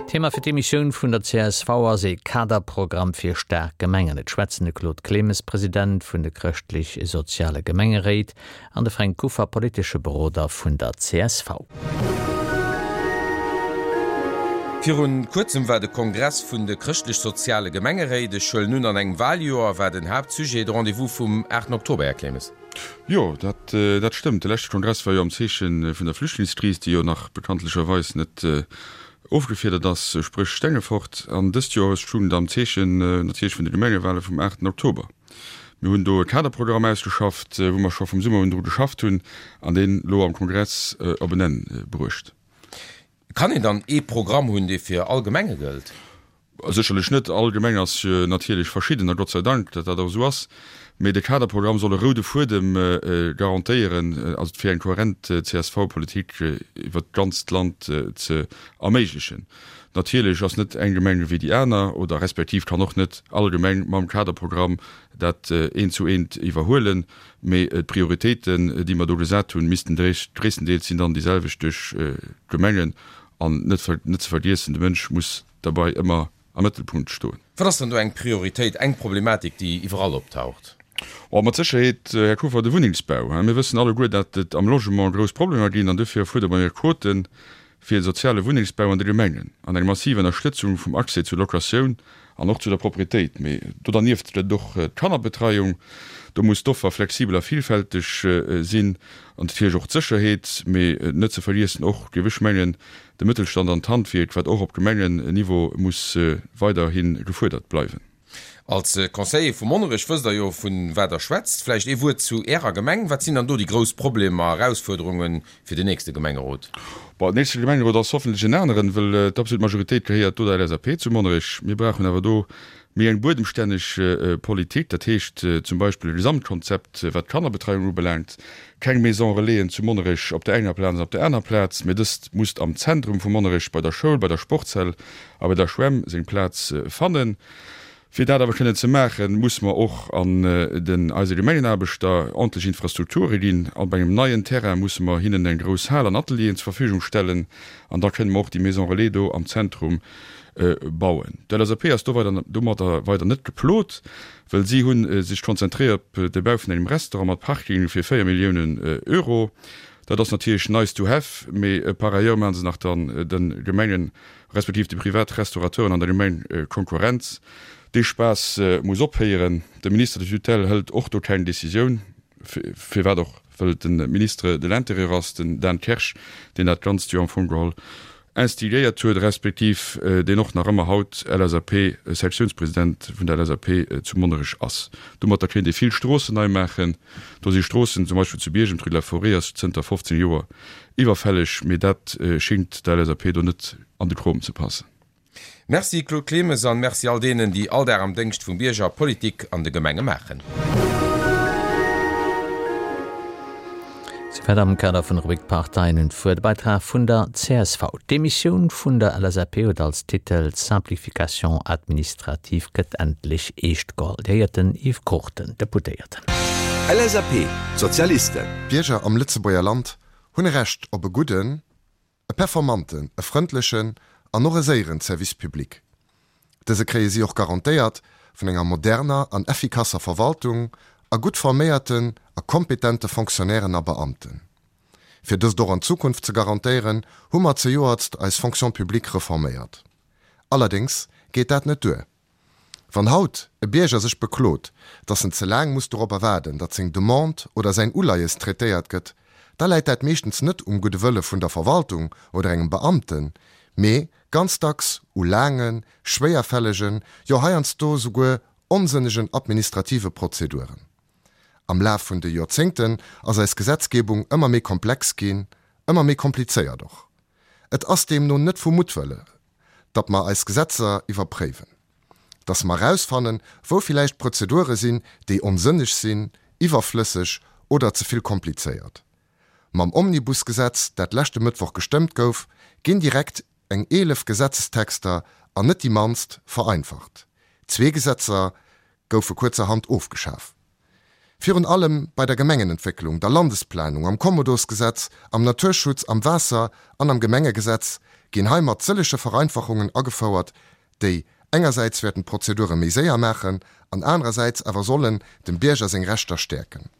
Thema fir d'Emissioun vun der csv ass ee Kaderprogramm fir staark Gemengen. Et schwätzen de Claude Clemes, President vun de Chrëschtlech-Soziale Gemengeréit, an de Fränk Kuffer, politesche Beroder vun der csv. Virun kuerzem war de Kongress vun de Chrëschtlech-Soziale Gemengeréit. Ech huelen un, an engem Wahljoer war den Haaptsujet de Rendez-vous vum 8 Oktober, Här Clemes. Jo, dat dat stëmmt. De leschte Kongress war jo am Zeeche vun der Flüchtlingskris, déi jo nach bekanntlecherweis net ofgefiedert ass, spréch Stengefort. An dëst Joer stoung et am Zeechen natierlech vun de Gemengewale vum aachten Oktober. Mir hunn do e Kaderprogramm ausgeschafft, wou mer scho vum Summer un dru geschafft hunn an deen elo am Kongress op en Enn bruecht. Kann een dann ee Programm hunn, dee fir all Gemenge gëllt? Sécherlech net. All Gemeng ass natierlech verschidden, a Gott sei Dank, datt dat och esou ass. Mee de Kaderprogramm soll e roude Fuedem garantéieren, also fir eng kohärent CSV-Politik iwwert d'ganzt Land ze erméiglechen. Natierlech ass net eng Gemeng ewéi déi aner, oder respektiv kann och net all Gemeng mam Kaderprogramm dat eent zu eent iwwerhuelen. Mee d'Prioritéiten, déi mer do gesat hunn, missten gréisstendeels sinn dann déi selwecht duerch d'Gemengen. An net ze vergiessen, de Mënsch muss derbei ëmmer am Mëttelpunkt stoen. Wat ass dann do eng Prioritéit, eng Problematik, déi iwwerall optaucht? Oh, mat Sécherheet, Här Kuffer, de Wunnengsbau. Mir wëssen alleguer, datt et am Logement grouss Problemer ginn, an dofir fuerdere mer Quoten fir soziale Wunnengsbau an de Gemengen an eng massiv Ënnerstëtzung vum Accès zur Locatioun an och zu der Proprietéit. Mee do dernieft gëtt et och d'Kannerbetreiung. Do muss d'Offer flexibel a villfälteg sinn an natierlech och d'Sécherheet. Mee net ze vergiessen och, géif ech mengen, de Mëttelstand an d'Handwierk, wat och op Gemengenniveau muss weiderhi gefuerdert bleiwen. Als Conseiller vu Monnerech wësst der jo vun wat der schwätzt. Vläicht ee Wuert zu Ärer Gemeng. Wat sinn dann do déi grouss Problemer, Erausfuerderunge fir den nächste Gemengerot? Bon, den nächste Gemengerot ass hoffentlech en aneren, wëll d'absolut Majoritéit gehéiert do der LSAP zu Monnerech. Mir brauchen awer do méi eng buedemstänneg Politik, dat heescht zum Beispill e Gesamtkonzept wat d'Kannerbetreiung ubelaangt, keng Maison Relaisen zu Monnerech op der enger Plaz an op der aner Plaz, mee dëst musst am Zentrum vu Monnerech bei der Schoul, bei der Sportshal a bei der Schwämm seng Plaz fannen. Fir dat awer kënnen ze maachen, musse mer och an den eise Gemengenaarbechter ordentlech Infrastrukture ginn. Op engem neien Terrain musse mer hinnen eng grouss Hal an Atelieren zur Verfügung stellen an da kënne mer och déi Maison Relais do am Zentrum bauen. D'LSAP ass do weider domadder weider net geplot, well si hu sech konzentréiert op de Bau vun engem Restaurant mat Parking fir 4 Milliounen Euro. Dat ass natierlech nice to have, mee par ailleurs maache se nach dann de Gemengen respektiv de privat Restaurateuren an der Gemeng Konkurrenz. Dee Spaass muss ophéieren. De Ministre de tutelle hëlt och do keng Décisioun, firwat och, wëll et de Ministre de l'Intérieur ass, den Dan Kersch, deen dat Ganzt jo am Fong geholl instigéiert huet, respektiv deen och nach ëmmer haut LSAP-Sektiounspresident vun der LSAP zu Monnerech ass. Domatter kéint ee vill Stroossen nei maachen. Do si Stroossen, zum Beispill zu Biergem, d'Rue de la Forêt ass zënter 15 Joer Iwwerfälleg, mee dat schingt der LSAP do net an de Krom ze passen. Merci Claude Clemes an Merci all deenen, déi all Dag am Déngscht vum Bierger Politik an de Gemenge maachen. Souwäit am Kader vun der Rubrik Parteien un d'Wuert e Beitrag vun der csv. D'Demissioun vun der LSAP huet als Titel Simplification administrative gëtt endlech eescht geholl. Dir héiert den Yves Cruchten, Deputéierten. LSAP, Sozialisten. D'Bierger am Lëtzebuerger Land hunn e Recht op e gudden, e performanten, e frëndlechen an och e séieren Service public. Dëse kréie si och garantéiert vun enger moderner an effikasser Verwaltung a gutt forméierten a kompetente Fonctionnairen a Beamten. Fir dëst och an Zukunft ze garantéieren, hu mer zejoertst eis Fonction publique reforméiert. Allerdéngs geet dat net duer. Wann haut e Bierger sech beklot, datt en ze laang muss doropper waarden, datt seng Demande oder säin Uleies traitéiert gëtt, da läit dat meeschtens net um gudde Wëlle vun der Verwaltung oder engem Beamten, mee ganz dacks u laangen, schwéierfällegen, jo heiansdo souguer onsënnegen administrative Prozeduren. Am Laf vun de Joerzéngten ass eis Gesetzgebung ëmmer méi komplex ginn, ëmmer méi komplizéiert och. Et ass deemno net vu Muttwëlle, datt mer eis Gesetzer iwwerpréiwen, datt mer erausfannen, wou villäicht Prozedure sinn, déi onsënneg sinn, iwwerflësseg oder ze vill komplizéiert. Mam Omnibusgesetz, dat leschte Mëttwoch gestëmmt gouf, ginn direkt eng 11 Gesetzestexter, an net déi mannst, vereinfacht. Zwee Gesetzer goufe kuerzerhand ofgeschaf. Virun allem bei der Gemengenentwécklung, der Landesplanung, am Kommodosgesetz, am Naturschutz, am Waasser an am Gemengegesetz ginn heimat sëllege Vereinfachungen agefouert, déi engersäits wäerten d'Prozedure méi séier maachen an anerersäits awer sollen dem Bierger seng Rechter stäerken.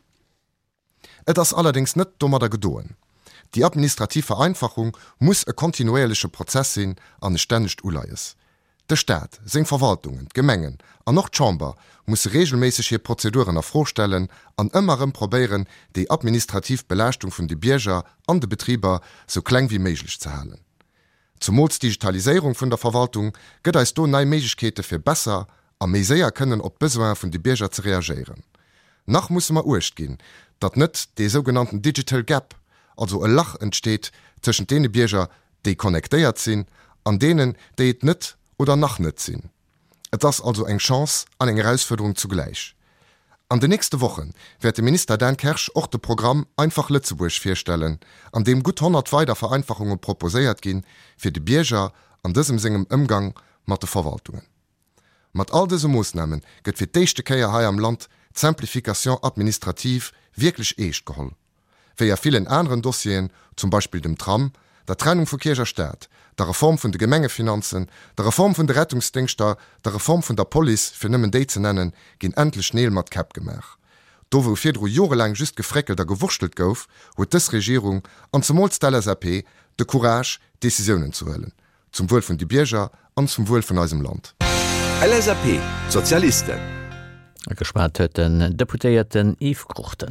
Et ass allerdéngs net domadder gedoen. Déi administrativ Vereinfachung muss e kontinuéierleche Prozess sinn an e stännegt Uleies. De Staat, seng Verwaltungen, d'Gemengen an och d'Chamber musse reegelméisseg hir Prozeduren a Fro stellen an ëmmer erëm probéieren, déi administrativ Belaaschtung vun de Bierger an de Betriber sou kleng wéi méiglech ze halen. Zumools d'Digitaliséierung vun der Verwaltung gëtt eis do nei Méiglechkeete fir besser a méi séier kënnen op d'Besoine vun de Bierger ze reagéieren. Nach musse mer Uecht ginn, datt net dee sougenannten digital gap, also e Lach entsteet tëschent deene Bierger, déi connectéiert sinn, an deenen, déi et net oder nach net sinn. Et ass also eng Chance an eng Erausfuerderung zugläich. An den nächste Woche wäert de Minister Dan Kersch och de Programm Einfach Lëtzebuerg virstellen, an deem gutt 100 weider Vereinfachunge proposéiert ginn, fir de Bierger an dësem sengem Ëmgang mat de Verwaltungen. Mat all dëse Moossname gëtt fir d'éischte Kéier hei am Land d'Simplification administrative wierklech eescht geholl. Wéi a villen aneren Dossieren, zum Beispill dem Tram, der Trennung vu Kierch a Staat, der Reform vun de Gemengefinanzen, der Reform vun de Rettungsdéngschter, der Reform vun der Police, fir nëmmen déi ze nennen, ginn endlech Neel mat Käpp gemaach. Do wou virdru jorelaang just gefréckelt a gewurschtelt gouf, huet dës Regierung, an zemools d'LSAP, de Courage, Decisiounen ze huelen. Zum Wuel vun de Bierger an zum Wuel vun eisem Land. LSAP, D'Sozialisten. Geschwat huet den Deputéierten Yves Cruchten.